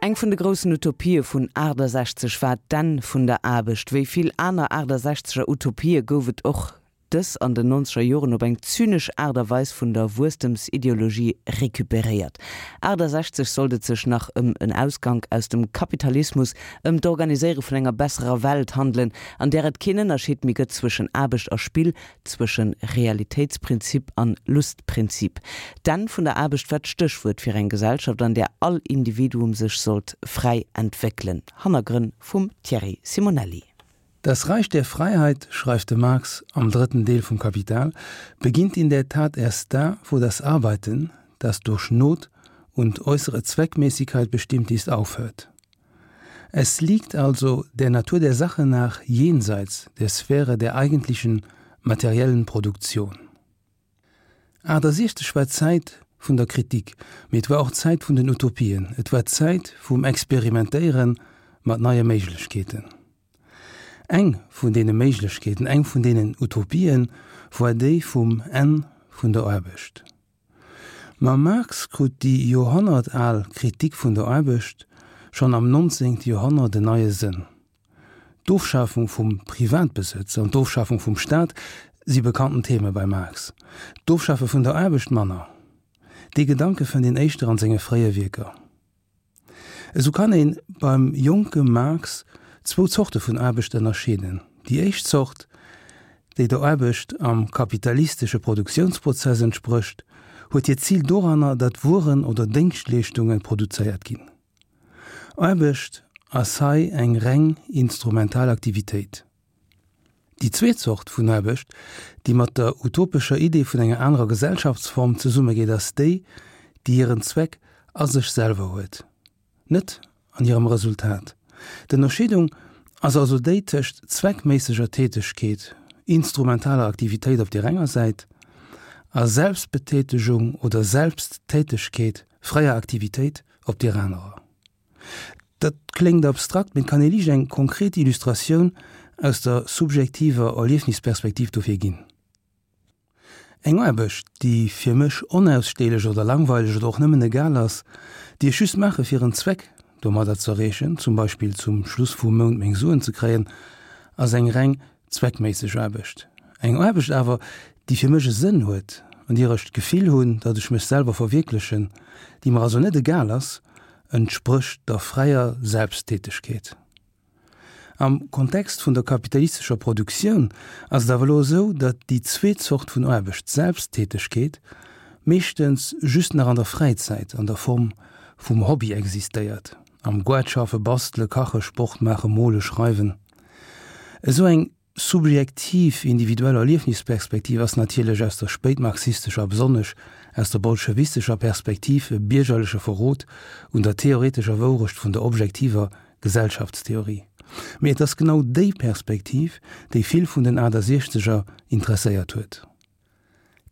Eng vun de groussen Utopië vun 68 war d'Enn vun der Aarbecht. Wéi vill aner 68er Utopië gouf et och dës an den nonzeger Joren op eng zynesch Aart a Weis vun der Wuesstemsideologie recuperéiert. 68 sollt et sech nach ëm en Ausgank aus dem Kapitalismus, ëm d'Organiséiere vun enger besserer Welt handelen, an där et keen Ënnerscheed méi gëtt zwëschen Aarbecht a Spill, Zwëschen Realitéitsprinzip an Lustprinzip. D'Enn vun der Aarbecht war d'Stéchwuert fir eng Gesellschaft, an där all Individuum sech sollt fräi entwéckelen. Hannergrënn vum Thierry Simonelli. Das Reich der Freiheit, schreift de Marx am drëtten Deel vum Kapital, beginnt in der Tat erst da, wo das Arbeiten, das durch Not und äußere Zweckmäßigkeit bestimmt ist, aufhört. Es liegt also der Natur der Sache nach jenseits der Sphäre der eigentlichen materiellen Produktion. 68 war d'Zäit vun der Kritik, mee et war och d'Zäit vun den Utopien, et war d'Zäit vum Experimentéiere mat neie Méiglechkeeten. Eng vun deene Méiglechkeeten, eng vun deenen Utopien war déi vum Enn vun der Aarbecht. Mam Marx krut déi joerhonnertal Kritik vun der Aarbecht schonn am 19. Joerhonnert en neie Sënn. D'Ofschafung vum Privatbesëtz an d'Ofschafung vum Staat si bekannten Theme beim Marx, d'Ofschafe vun der Aarbecht manner. Dee Gedanke fënnt een éischter an senge fréie Wierker. Esou kann ee beim jonke Marx zwou Zorte vun Aarbecht ënnerscheeden, Déi éischt Zort, déi der Aarbecht am kapitalistesche Produktiounsprozess entsprécht, huet hiert Zil doranner, datt Wueren oder Déngschtleeschtunge produzéiert ginn. Aarbecht ass hei eng reng instrumental Aktivitéit. Déi zweet Zort vun Aarbecht, déi mat der utopescher Idee vun enger anerer Gesellschaftsform zesummegeet, ass déi, déi hiren Zweck a sech selwer huet, net an hirem Resultat. D'Ënnerscheedung ass also déi tëscht zweckméisseger Tätegkeet, instrumentaler Aktivitéit op deer enger Säit, a Selbstbetätegung oder Selbsttätegkeet, fräier Aktivitéit, op deer anerer. Dat kléngt abstrakt, mee et kann ee liicht eng konkret Illustratioun aus der subjektiver Erliefnisperspektiv dofir ginn. Eng Aarbecht, déi fir mech onaussteelech oder langweileg oder och nëmmen egal ass, déi ech just maache fir en Zweck domadder z'erreechen, zum Beispill zum Schluss vum Mount meng Suen ze kréien, ass eng reng zweckméisseg Aarbecht. Eng Aarbecht awer, déi fir mech e Sënn huet, an deer ech d'Gefill hunn, datt ech mech selwer verwierklechen, déi mer also net egal ass, entsprécht der fräier Selbsttätegkeet. Am Kontext vun der kapitalistescher Produktioun ass et awer elo esou, datt déi zweet Zort vun Aarbecht, d'Selbsttätegkeet, meeschtens just nach an der Fräizäit an der Form vum Hobby existéiert, am Goart schaffe, bastele, kache, Sport maachen, mole, schreiwen. Esou eng subjektiv individuell Erliefnisperspektiv ass natierlech aus der spéitmarxistescher a besonnesch aus der bolschewistescher Perspektiv e biergerleche Verrot un der theoretescher Wourecht vun der objektiver Gesellschaftstheorie. Mee et ass genau déi Perspektiv, déi vill vun den Achtasiechzeger interesséiert huet.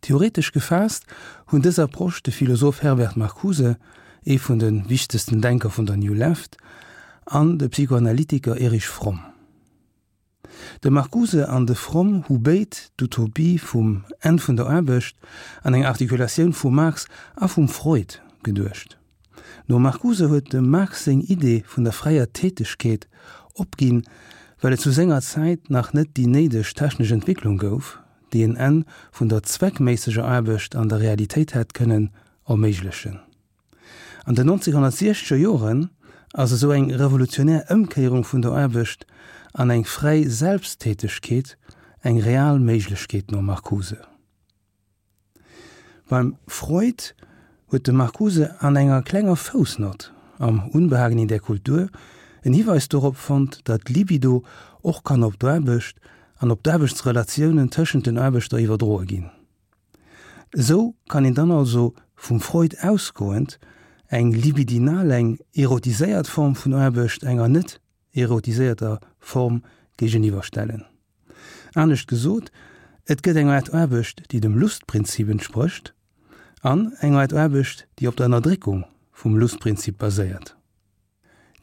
Theoretesch gefaasst hunn dës Approche de Philosoph Herbert Marcuse, ee vun de wichtegsten Denker vun der New Left, an de Psychoanalytiker Erich Fromm. De Marcuse an de Fromm hu béid d'Utopie vum Enn vun der Aarbecht an eng Artikulatioun vum Marx a vum Freud geduecht. Nom Marcuse huet dem Marx seng Idee vun der fräier Tätegkeet opginn, well et zu senger Zäit nach net déi néideg technesch Entwécklung gouf, déi en Enn vun der zweckméisseger Aarbecht an der Realitéit hätt kënnen erméiglechen. An den 1960er Joren ass esou eng revolutionär Ëmkéierung vun der Aarbecht an eng fräi Selbsttätegkeet eng real Méiglechkeet nom Marcuse. Beim Freud huet de Marcuse an enger klenger Foussnott am Unbehagen in der Kultur en Hiweis dorop fonnt, datt d'Libido och kann op d'Aarbecht an op d'Aarbechtsrelatiounen tëschent den Aarbechter iwwerdroe ginn. Esou kann een dann also, vum Freud ausgoend, eng libidinal, eng erotiséiert Form vun Aarbecht enger net erotiséierter Form géigeniwwerstellen. Anescht gesot, et gëtt eng Aart Aarbecht, déi dem Lustprinzip entsprécht, an eng Aart Aarbecht, déi op der Ënnerdréckung vum Lustprinzip baséiert.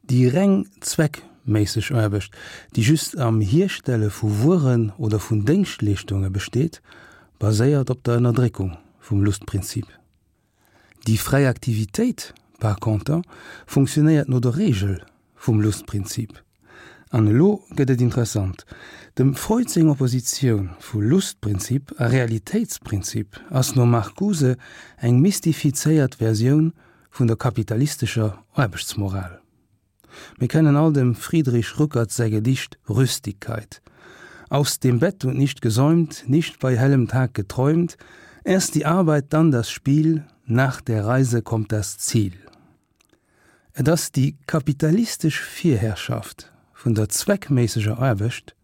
Déi reng zweckméisseg Aarbecht, déi just am Hierstelle vu Wueren oder vun Déngschtleeschtunge besteet, baséiert op der Ënnerdréckung vum Lustprinzip. Déi fräi Aktivitéit par conter, funktionéiert no der Reegel vum Lustprinzip. An elo gëtt et interessant, Dem Freud seng Oppositioun vu Lustprinzip a Realitéitsprinzip ass nom Marcuse eng mystifizéiert Versioun vun der kapitalistescher Aarbechtsmoral. Mir kennen all dem Friedrich Rückert säi Gedicht Rüstigkeit. Aus dem Bett und nicht gesäumt, nicht bei hellem Tag geträumt, erst die Arbeit, dann das Spiel, nach der Reise kommt das Ziel. Et ass déi kapitalistesch Virherrschaft vun der zweckméisseger Aarbecht,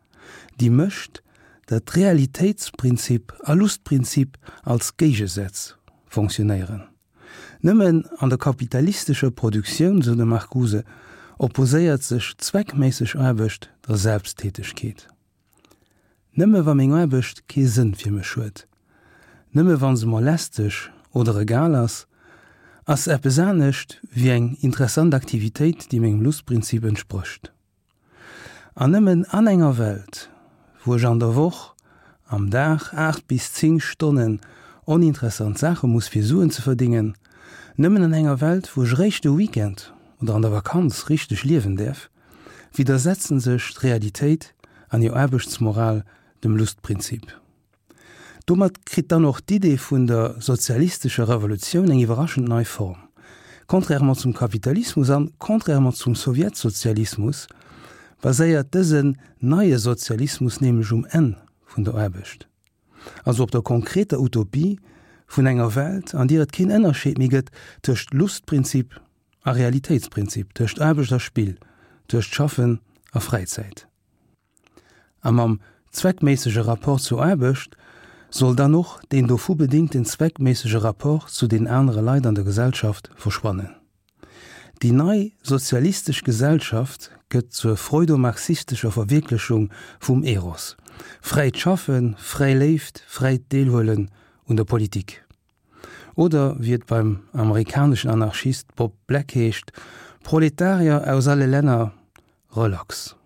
déi mécht, datt Realitéitsprinzip a Lustprinzip als Géigesätz fonctionnéieren. Nëmmen an der kapitalistescher Produktioun, sou de Marcuse, opposéiert sech zweckméisseg Aarbecht der Selbsttätegkeet. Nëmme wa meng Aarbecht kee Sënn fir mech huet, nëmme wa se mer lästeg oder egal ass, ass se eppes anescht wéi eng interessant Aktivitéit, déi mengem Lustprinzip entsprécht. An nëmmen an enger Welt, wou ech an der Woch am Dag 8 bis 10 Stonnen oninteressant Saache muss fir Suen ze verdingen, nëmmen an enger Welt, wou ech réischt de Weekend oder an der Vakanz richteg liewen däerf, widdersetzen sech d'Realitéit an hir Aarbechtsmoral dem Lustprinzip. Domat kritt dann och d'Idee vun der sozialistescher Revolutioun eng iwwerraschend nei Form. Contrairement zum Kapitalismus an contrairement zum Sowjetsozialismus baséiert dësen neie Sozialismus nämlech um Enn vun der Aarbecht, also op der konkreter Utopie vun enger Welt, an deer et keen Ënnerscheed méi gëtt tëscht Lustprinzip a Realitéitsprinzip, tëscht Aarbecht a Spill, tëscht Schaffen a Fräizäit. A mam zweckméissege Rapport zur Aarbecht soll dann och deen dovu bedingten zweckméissege Rapport zu den anere Leit an der Gesellschaft verschwannen. Déi nei sozialistesch Gesellschaft gëtt zur freudomarxistescher Verwierklechung vum Eros, fräit Schaffen, fräi Léift, fräit Deelhuelen un der Politik. Oder wéi et beim amerikaneschen Anarchist Bob Black heescht, Proletarier aus alle Länner, relax!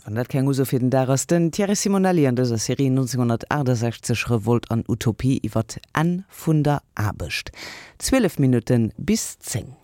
Wann dat keng Uso fir den Dag ass, den Thierry Simonelli an dëser Serie 1968, Revolt an Utopie iwwer d'Enn vun der Aarbecht. 12 Minutte bis 10.